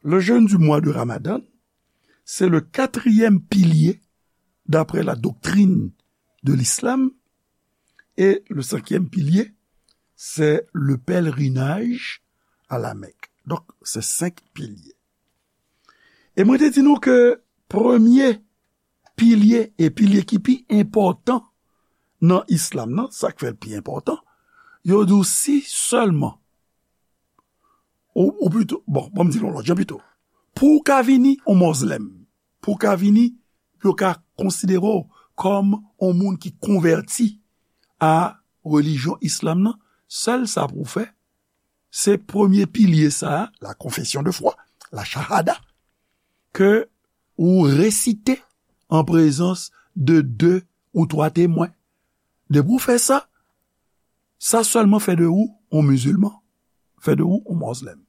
le jeûne du mois de Ramadan, c'est le quatrième pilier, d'après la doctrine de l'islam, et le cinquième pilier, c'est le pèlerinage à la Mecque. Donk, se senk pilye. E mwen te di nou ke premye pilye, e pilye ki pi enpòtan nan islam nan, sa k fè l pi enpòtan, yo di w si sèlman, ou, ou pito, bon, bon, m di l yon lòt jan pito. Pou w ka vini yon mozlèm, pou w ka vini, pou yo ka konsidere w kòm yon moun ki konvèti a relijyon islam nan, sèl sa pou w fè, se premye pilye sa a, la confession de foi, la shahada, ke ou resite an prezans de de ou twa temwen. Depi w fè sa, sa sèlman fè de ou yon mizilman, fè de ou yon mozlèm.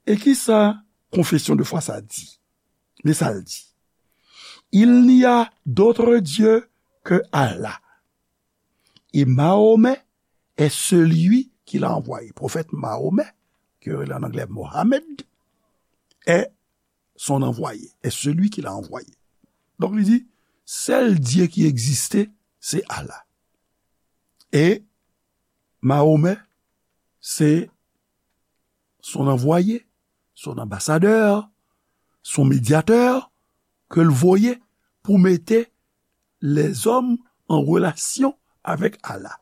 E ki sa confession de foi sa di? Men sa l di. Il n'y a d'autre Dieu que Allah. Et Mahomet est celui qu'il a envoyé. Pwofèt Mahomet, ke yo rele an anglè Mohammed, est son envoyé, est celui qu'il a envoyé. Donk, li di, sèl Dye ki egziste, se Allah. E Mahomet, se son envoyé, son ambassadeur, son médiateur, ke l voye pou mete lèzòm an relasyon avèk Allah.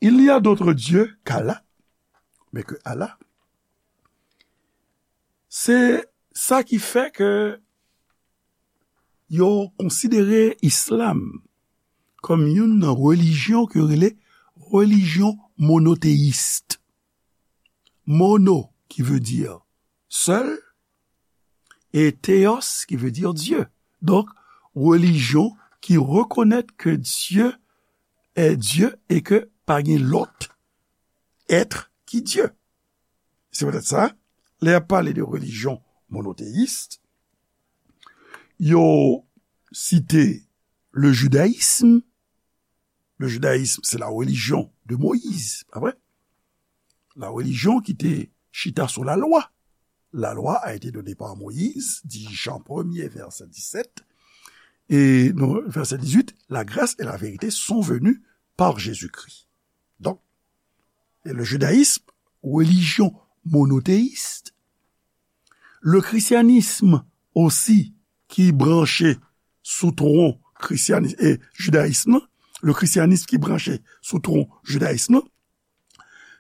Il n'y a d'autre Dieu qu'Allah, mais que Allah. Se sa ki fè ke yo konsidere islam kòm youn nan relijyon ke yo rele relijyon monoteyis. Mono, ki vle di sèl, e theos, ki vle di Dye. Donk, relijyon ki rekonèt ke Dye est Dieu e ke pa gen lòt èt ki Dye. Se poutèt sa, lè y ap pale de relijyon monoteyis, yo site le judaïsme. Le judaïsme, c'est la religion de Moïse, pa vre? La religion ki te chita sou la loi. La loi a été donnée par Moïse, dit Jean premier, verset dix-sept, et non, verset dix-huit, la grâce et la vérité sont venues par Jésus-Christ. Donk, e le judaïsme, relijyon monoteyis, le christianisme osi ki branche sou twon krisyanis-, e jidayis lan, le christianisme ki branche sou twon jidayis lan,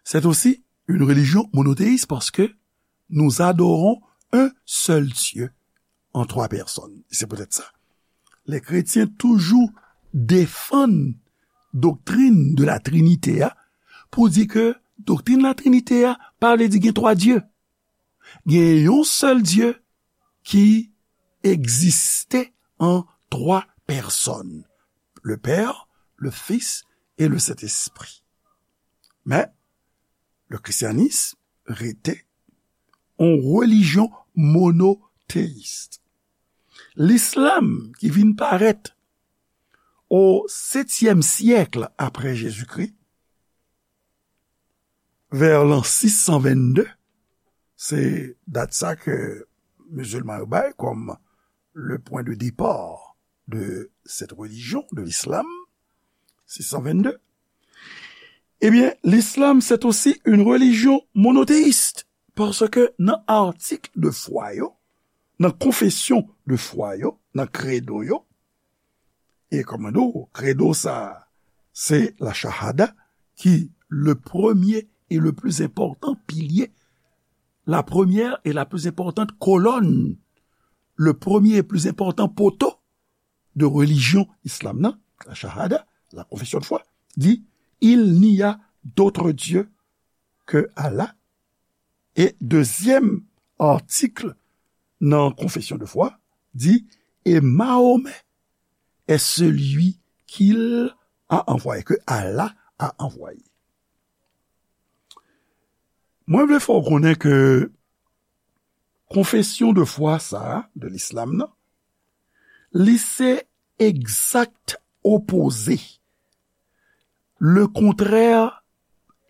c'est aussi une religion monothéiste parce que nous adorons un seul Dieu en trois personnes. C'est peut-être ça. Les chrétiens toujours défendent doktrin de la Trinité a, pou di ke doktrin la Trinité a pa vle di gen twa Dye. Gen yon sèl Dye ki egziste an twa pèsòn, le Père, le Fils et le Saint-Esprit. Men, le christianisme rete yon relijyon monoteyis. Lislam ki vin parèt o setyèm syèk apre Jezikri, vè lan sis san vennde, se dat sa ke mizilman yo bay kòm le point de départ de cette religion, de l'islam, sis san vennde. Ebyen, l'islam, c'est aussi une religion monothéiste, paske nan atik de fwa yo, nan konfesyon de fwa yo, nan kredo yo, e kòm nou di w, kredo sa a, se la shahada, ki le premier et le plus important pilier, la première et la plus importante colonne le premye e pli enpòtan poto de relijyon islam nan, la shahada, la confession de foi, di, il n'y a d'autre Dieu que Allah. E dezyèm atik nan confession de foi di, et Mahomet est celui qu'il a envoyé, que Allah a envoyé. Mwen vle fè w konnen ke confession de foi sa a, de l'islam nan, li se egzak opoze, le kontrè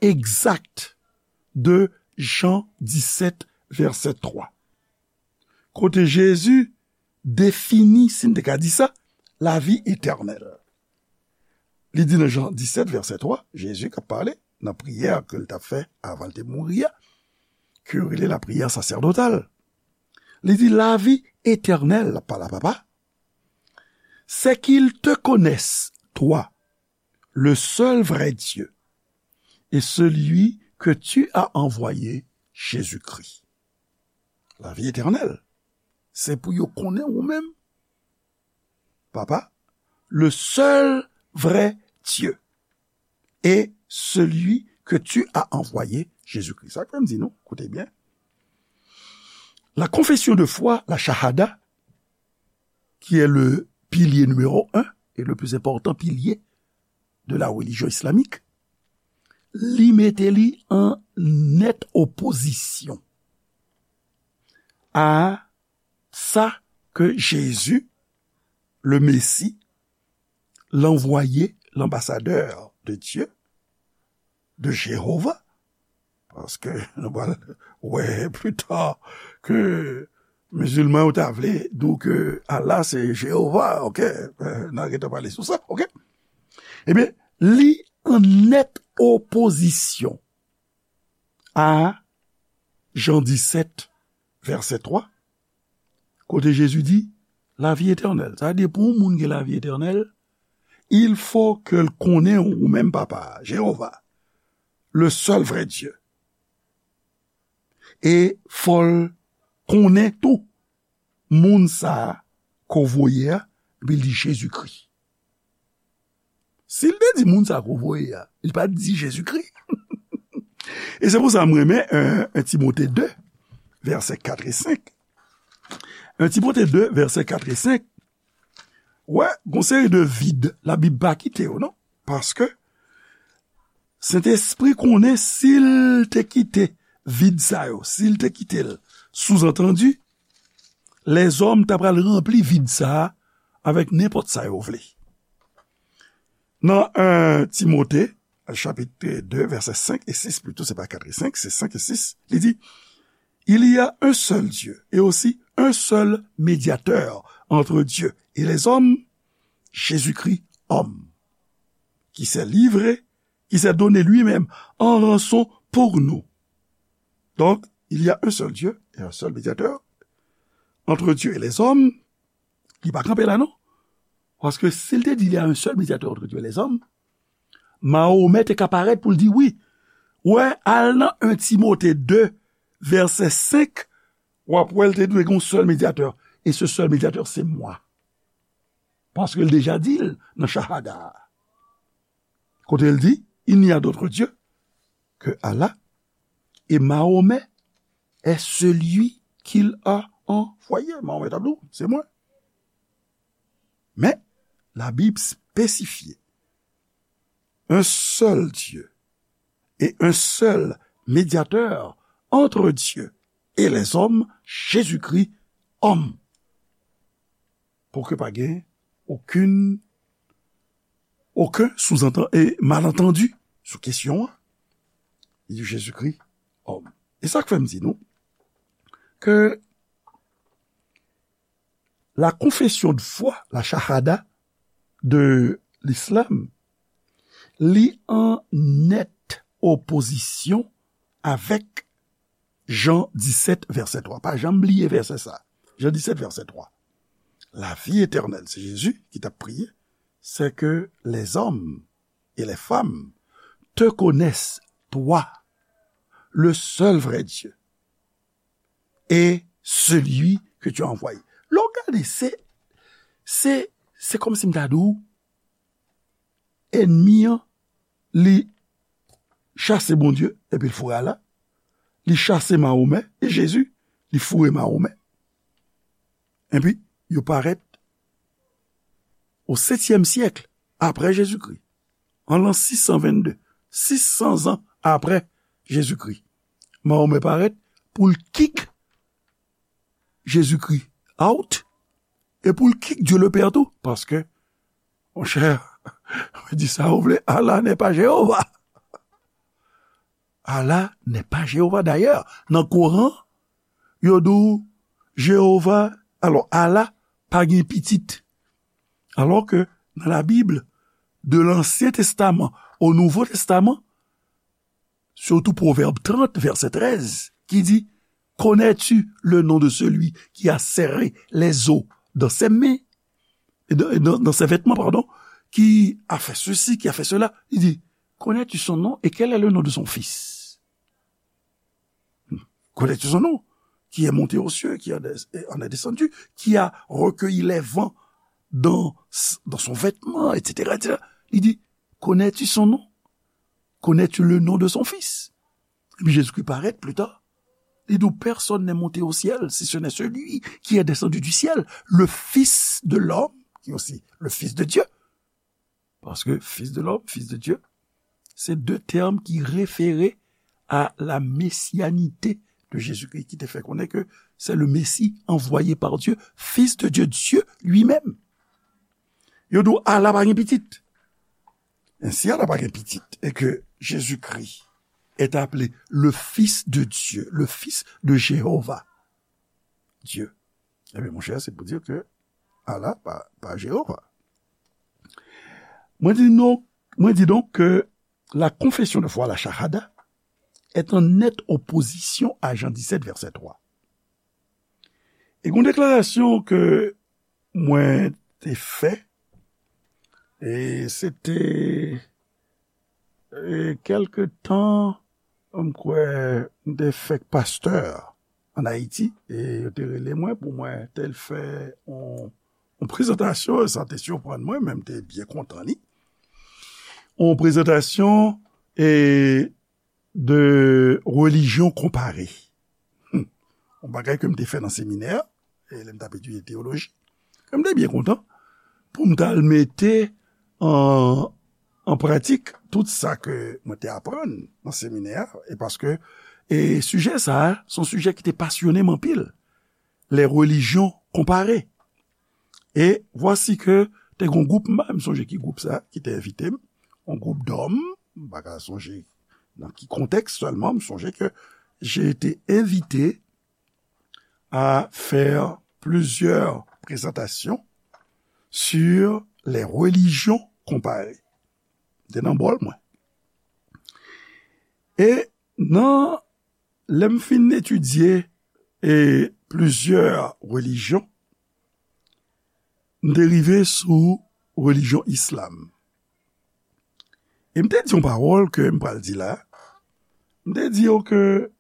egzak de Jan disèt, vèsè twa. Kote Jezi defini, si n te ka di sa, lavi etènèl. Li di nan Jan disèt, vèsè twa, Jezi k ap pale nan priyè ke l t ap fè avan l te mouri a, ke yo rele lapriyè sasèdotal. Li di, lavi etènèl, l ap pale a Papa, c'est qu'ils te connaissent, toi, le seul vrai Dieu, et celui que tu as envoyé, Jésus-Christ. Lavi etènèl, se pou yo konnen ou menm, Papa, le seul vrai Dieu, et celui que tu as envoyé, Jésus-Christ. Sa k fè m di nou, koute byen. La confession de foi, la shahada, qui est le pilier numéro un et le plus important pilier de la religion islamique, li mete li an nèt opozisyon a sa ke Jezi, le Mesi, l'envoyé, l'ambassadeur de Dieu, de Jewova, paske nou pral wè pli ta ke mizilman yo ta vle di w ke Allah se Jewova, oke? Eh, n a gentan pale sou sa, oke? Ebyen, li an nèt opozisyon a Jan disèt, vèsè twa, kote Jezi di, lavi etènèl. Sa vle di, pou yon moun gen lavi etènèl, il faut ke l konnen ou menm Papa, Jewova, le seul vrai Dieu. E fò l konnen tou moun sa a ke w voye a, epi l di Jezikri. Si l te di moun sa a ke w voye a, li pa t di Jezikri. E se pou sa m renmen, euh, un Timote de, vèsè kat e senk. Un Timote de, vèsè kat e senk. Wè, gon seri de vid, Labib pa kite yo, non. Paske Sentespri konnen si l te kite vid sa yo, si l te kite l, souzantandi, lèzòm ta pral ranpli vid sa a avèk nenpòt sa yo vle. Nan un Timote, chapit de, vèsè senk e sis, plito, se pa kat e senk, se senk e sis, li di, il y a un seul Dieu et aussi un seul médiateur entre Dieu et les hommes, Jésus-Christ homme, qui s'est livré, qui s'est donné lui-même en rançon pour nous. Donc, il y a un seul Dieu et un seul médiateur entre Dieu et les hommes. Li pa kanpe la, non. Paske si l te di, il y a un seul médiateur entre Dieu et les hommes, Mahomet te ka parèt pou l di wi. Wè, al nan un Timote de, vèsè senk, w ap wè l te dwe gen yon sèl medyatè. E se sèl medyatè, se mwa. Paske l deja di l nan Shahada a. Kote l di, il n'y a d'autre Dieu que Allah, et Mahomet est celui qu'il a envoyé. Mahomet ap di w, se mwen. Men, Labib espesifye, un seul Dieu et un seul médiateur entre Dieu et les hommes, Jésus-Christ, homme. Pou ke pa gen okenn, okenn souzantan-, e, malantandi sou kesyon an. Li di Jezikri, homme. E sa k fè m di nou ke la confession de foi, la shahada de l'islam, li an nèt opozisyon avèk Jan disèt, vèsè twa. Pa janm bliye vèsè sa. Jan disèt, vèsè twa. La vie éternelle, se Jezi ki t ap priye, c'est que les hommes et les femmes te connaissent, toi, le seul vrai Dieu, et celui que tu as envoyé. Lè w gade, se, se, se kòmsi m ta di w, ènmi an, li chase Bondye, epi l foure Ala, li chase Mahomè, e Jezi, li foure Mahomè. Epi, yo parèt o setyèm syèk apre Jezikri, an lan sis san vennde, sis san zan apre Jezikri. Mahomè parèt pou l kik Jezikri out, e pou l kik Dye le Pè tou, paske, monchè, di sa ou vle, Allah n'est pas Jéhovah. Allah n'est pas Jéhovah. Dayè, nan Koran, yo di w Jewova, alò, Allah pa gen pitit. Alò ke nan Labib, de Lansyen Testaman o Nouvo Testaman, surtout Proverbe trente, verset treize, qui dit, connais-tu le nom de celui qui a serré les eaux dans ses mains, et dans, dans, dans ses vêtements, pardon, qui a fait ceci, qui a fait cela? Il dit, connais-tu son nom et quel est le nom de son fils? Connais-tu son nom? Qui est monté aux cieux, qui en est, en est descendu, qui a recueilli les vents dans, dans son vêtement, et cetera, et cetera. Il dit, connais-tu son nom? Connais-tu le nom de son fils? Epi Jezikri parèt pli ta. Li di w, personne n'est monté au ciel, si ce n'est celui qui est descendu du ciel, le Fils de l'homme, qui est aussi le Fils de Dieu. Paske Fils de l'homme, Fils de Dieu, se de tèm ki refere a la mesianite de Jezikri, ki te fè konnen ke c'est le Messie envoyé par Dieu, Fils de Dieu, Dieu lui-même. Yo di w, Allah pa gen pitit. Ensi, Allah pa gen pitit, e ke Jezikri est appelé le Fils de Dieu, le Fils de Jéhovah, Dieu. Ebyen, monchè, se pou di ke Allah pa, pa Jewova. Mwen di non, mwen di donk ke la confession de foi, la shahada, est en nette opposition à Jean dix-sept, verset trois. E gon deklarasyon ke mwen te fè, e se te, e kèlke tan, m kwè, m te fèk pastè an Ayiti, e yo te rele mwen pou mwen te fè yon, yon prezantasyon, sa te siprann mwen, men m te byen kontan li. Yon prezantasyon, e de relijyon konpare. Hmm. Yon bagay ke m te fè nan seminè, e lè m t ap etidye teyoloji, ke m te byen kontan pou m t al mete an, an pratik tout sa ke mwen te aprann nan seminè a, e paske, e sijè sa a, se yon sijè ki te pasyonnen m anpil. Les religions comparées. E vwasi ke te gon gwoup, m pa menm sonje ki gwoup sa ki te envite m, yon gwoup dòm, m pa ka sonje nan ki kontèks sèlman, m sonje ke j'ai été invité à faire plusieurs présentations sur les religions comparées. Te nan bòl mwen. E nan, lè m fin etidye, e plizyè relijyon, m te rive sou relijyon islam. E m te di yon pawòl ke m pral di la. M te di yo ke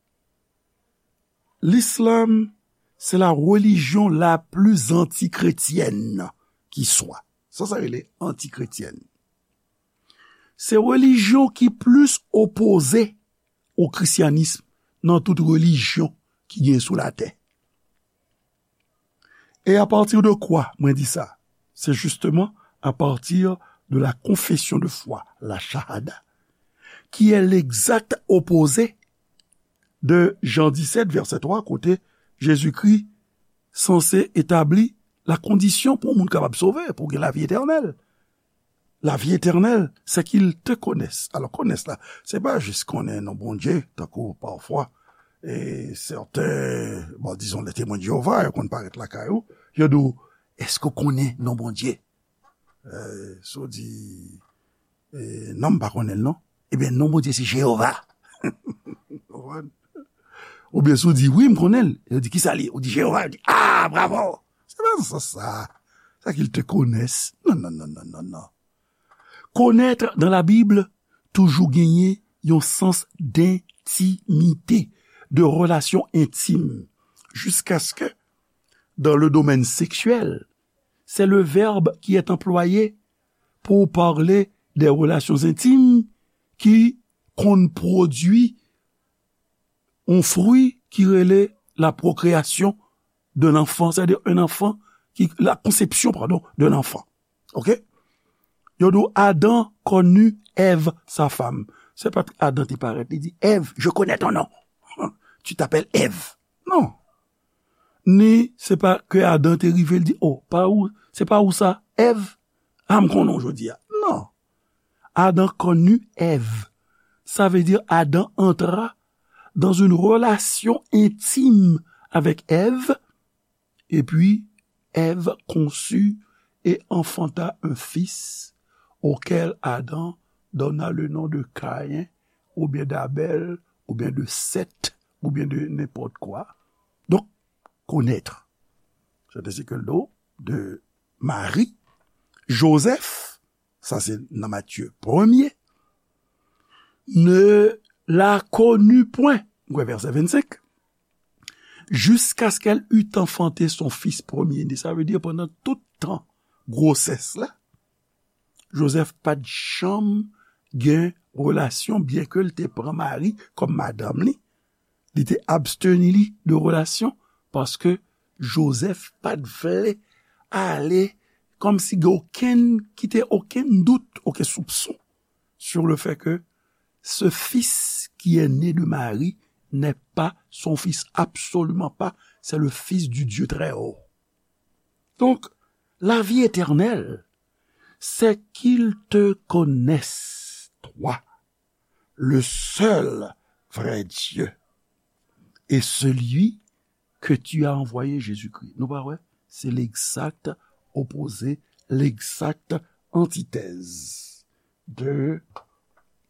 l'islam, c'est la religion la plus antichrétienne qui soit. Sa, sa rele antichrétienne. Se relijyon ki plis opoze o krisyanis nan tout relijyon ki gen sou latè. Et à partir de quoi mwen di sa? C'est justement à partir de la confession de foi, la shahada, qui est l'exact opposé de Jean dix-sept, verset trois, kote Jezikri sanse etabli la kondisyon pou yon moun kapab sove, pou gen lavi etènèl. Lavi etènèl, c'est qu'ils te connaissent. Alò, connaissent la, se pa jis konnen non Bondye, tankou pafwa, e sèten, bon, dizon, les Témoins de Jéhovah, yo konn parèt lakay ou, yo di w, èske w konnen non Bondye? E, si w di, e, non, m pa konnen l non. Ebyen, non Bondye se Jewova. Konprann? Oubyen si w di, wi, m konnen l. Yo di, kisa l ye? Ou di, Jewova. Yo di, ah, bravo! Se pa nan sans sa. C'est qu'ils te connaissent. Non, non, non, non, non, non. Connaître dans la Bible toujou genyen yon sans d'intimité, de relation intime, jusqu'à ce que dans le domaine sexuel, c'est le verbe qui est employé pour parler des relations intimes qui konn pwodui yon fwi ki rele la procréation d'un enfant, c'est-à-dire un enfant qui, la conception, pardon, d'un enfant. Ok? Yo di w Adam connut Ève, sa femme. Se pa Adam te parèt, li di, Ève, je connais ton nom. Tu t'appelles Ève. Non. Ni se pa ke Adam te rive, li di, oh, pa ou, se pa ou sa, Ève? Ah, m konnen w jodi a. Non. Adam connut Ève. Sa vle di Adam entra dans une relation intime avec Ève, et puis Ève conçut et enfanta un fils auquel Adam donna le nom de Caïn, ou bien d'Abel, ou bien de Seth, ou bien de n'importe quoi. Donc, connaître. C'est ainsi que le nom de Marie, Joseph, sa se nan Matthieu premye, ne la connut point, ou wè vèsè vennsenk, jusqu'à ce qu'elle eût enfanté son fils premier-né. Sa vle di pandan tout tan gwosès la, Joseph pa t janm gen relasyon, byen ke l te pran Mari kòm madanm li, li te absteni li de relasyon, paske Joseph pa t vle ale, kòmsi gen okenn, kite okenn dout, okenn soupson sur le fait que ce fils qui est né de Marie n'est pas son fils, absolument pas, c'est le fils du Dieu très haut. Donc, la vie éternelle, c'est qu'ils te connaissent, toi, le seul vrai Dieu, et celui que tu as envoyé, Jésus-Christ. Nou pa wè? Se l'exact opposé, l'exact antithèse de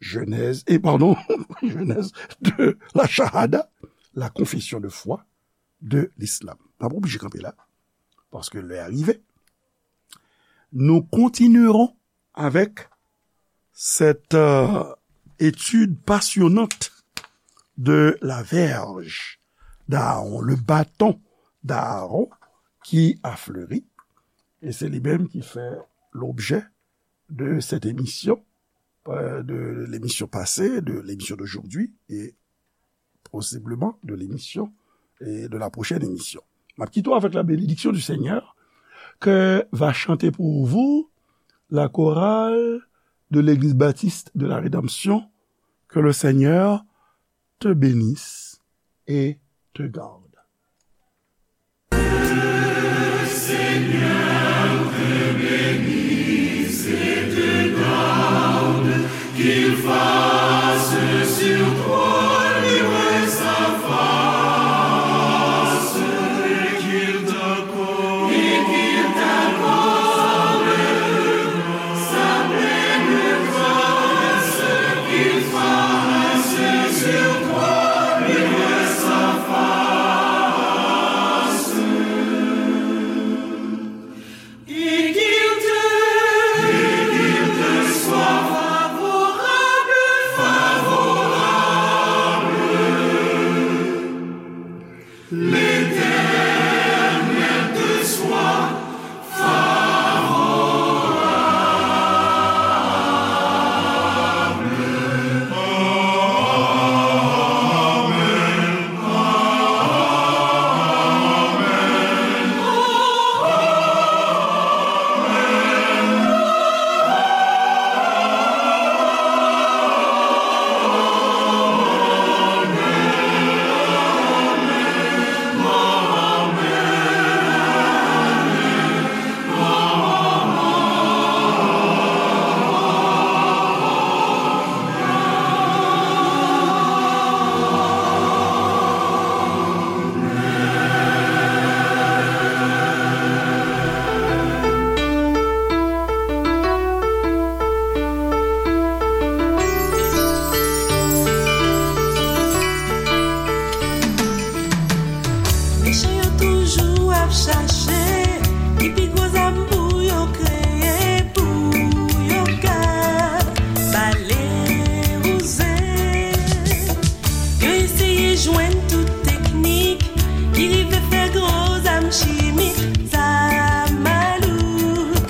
Genèse, et pardon, Genèse, de la Shahada, la confession de foi de l'islam. N ap oblije kanpe la, paske lè a rive. Nous continuerons avec cette euh, étude passionnante de la verge d'Aaron, le bâton d'Aaron qui a fleuri. Et c'est lui-même qui fait l'objet de cette émission, euh, de l'émission passée, de l'émission d'aujourd'hui et possiblement de l'émission et de la prochaine émission. M ap kite w avec la bénédiction du Seigneur que va chanter pour vous la chorale de l'Église baptiste de la Rédemption. Que le Seigneur te bénisse et te garde.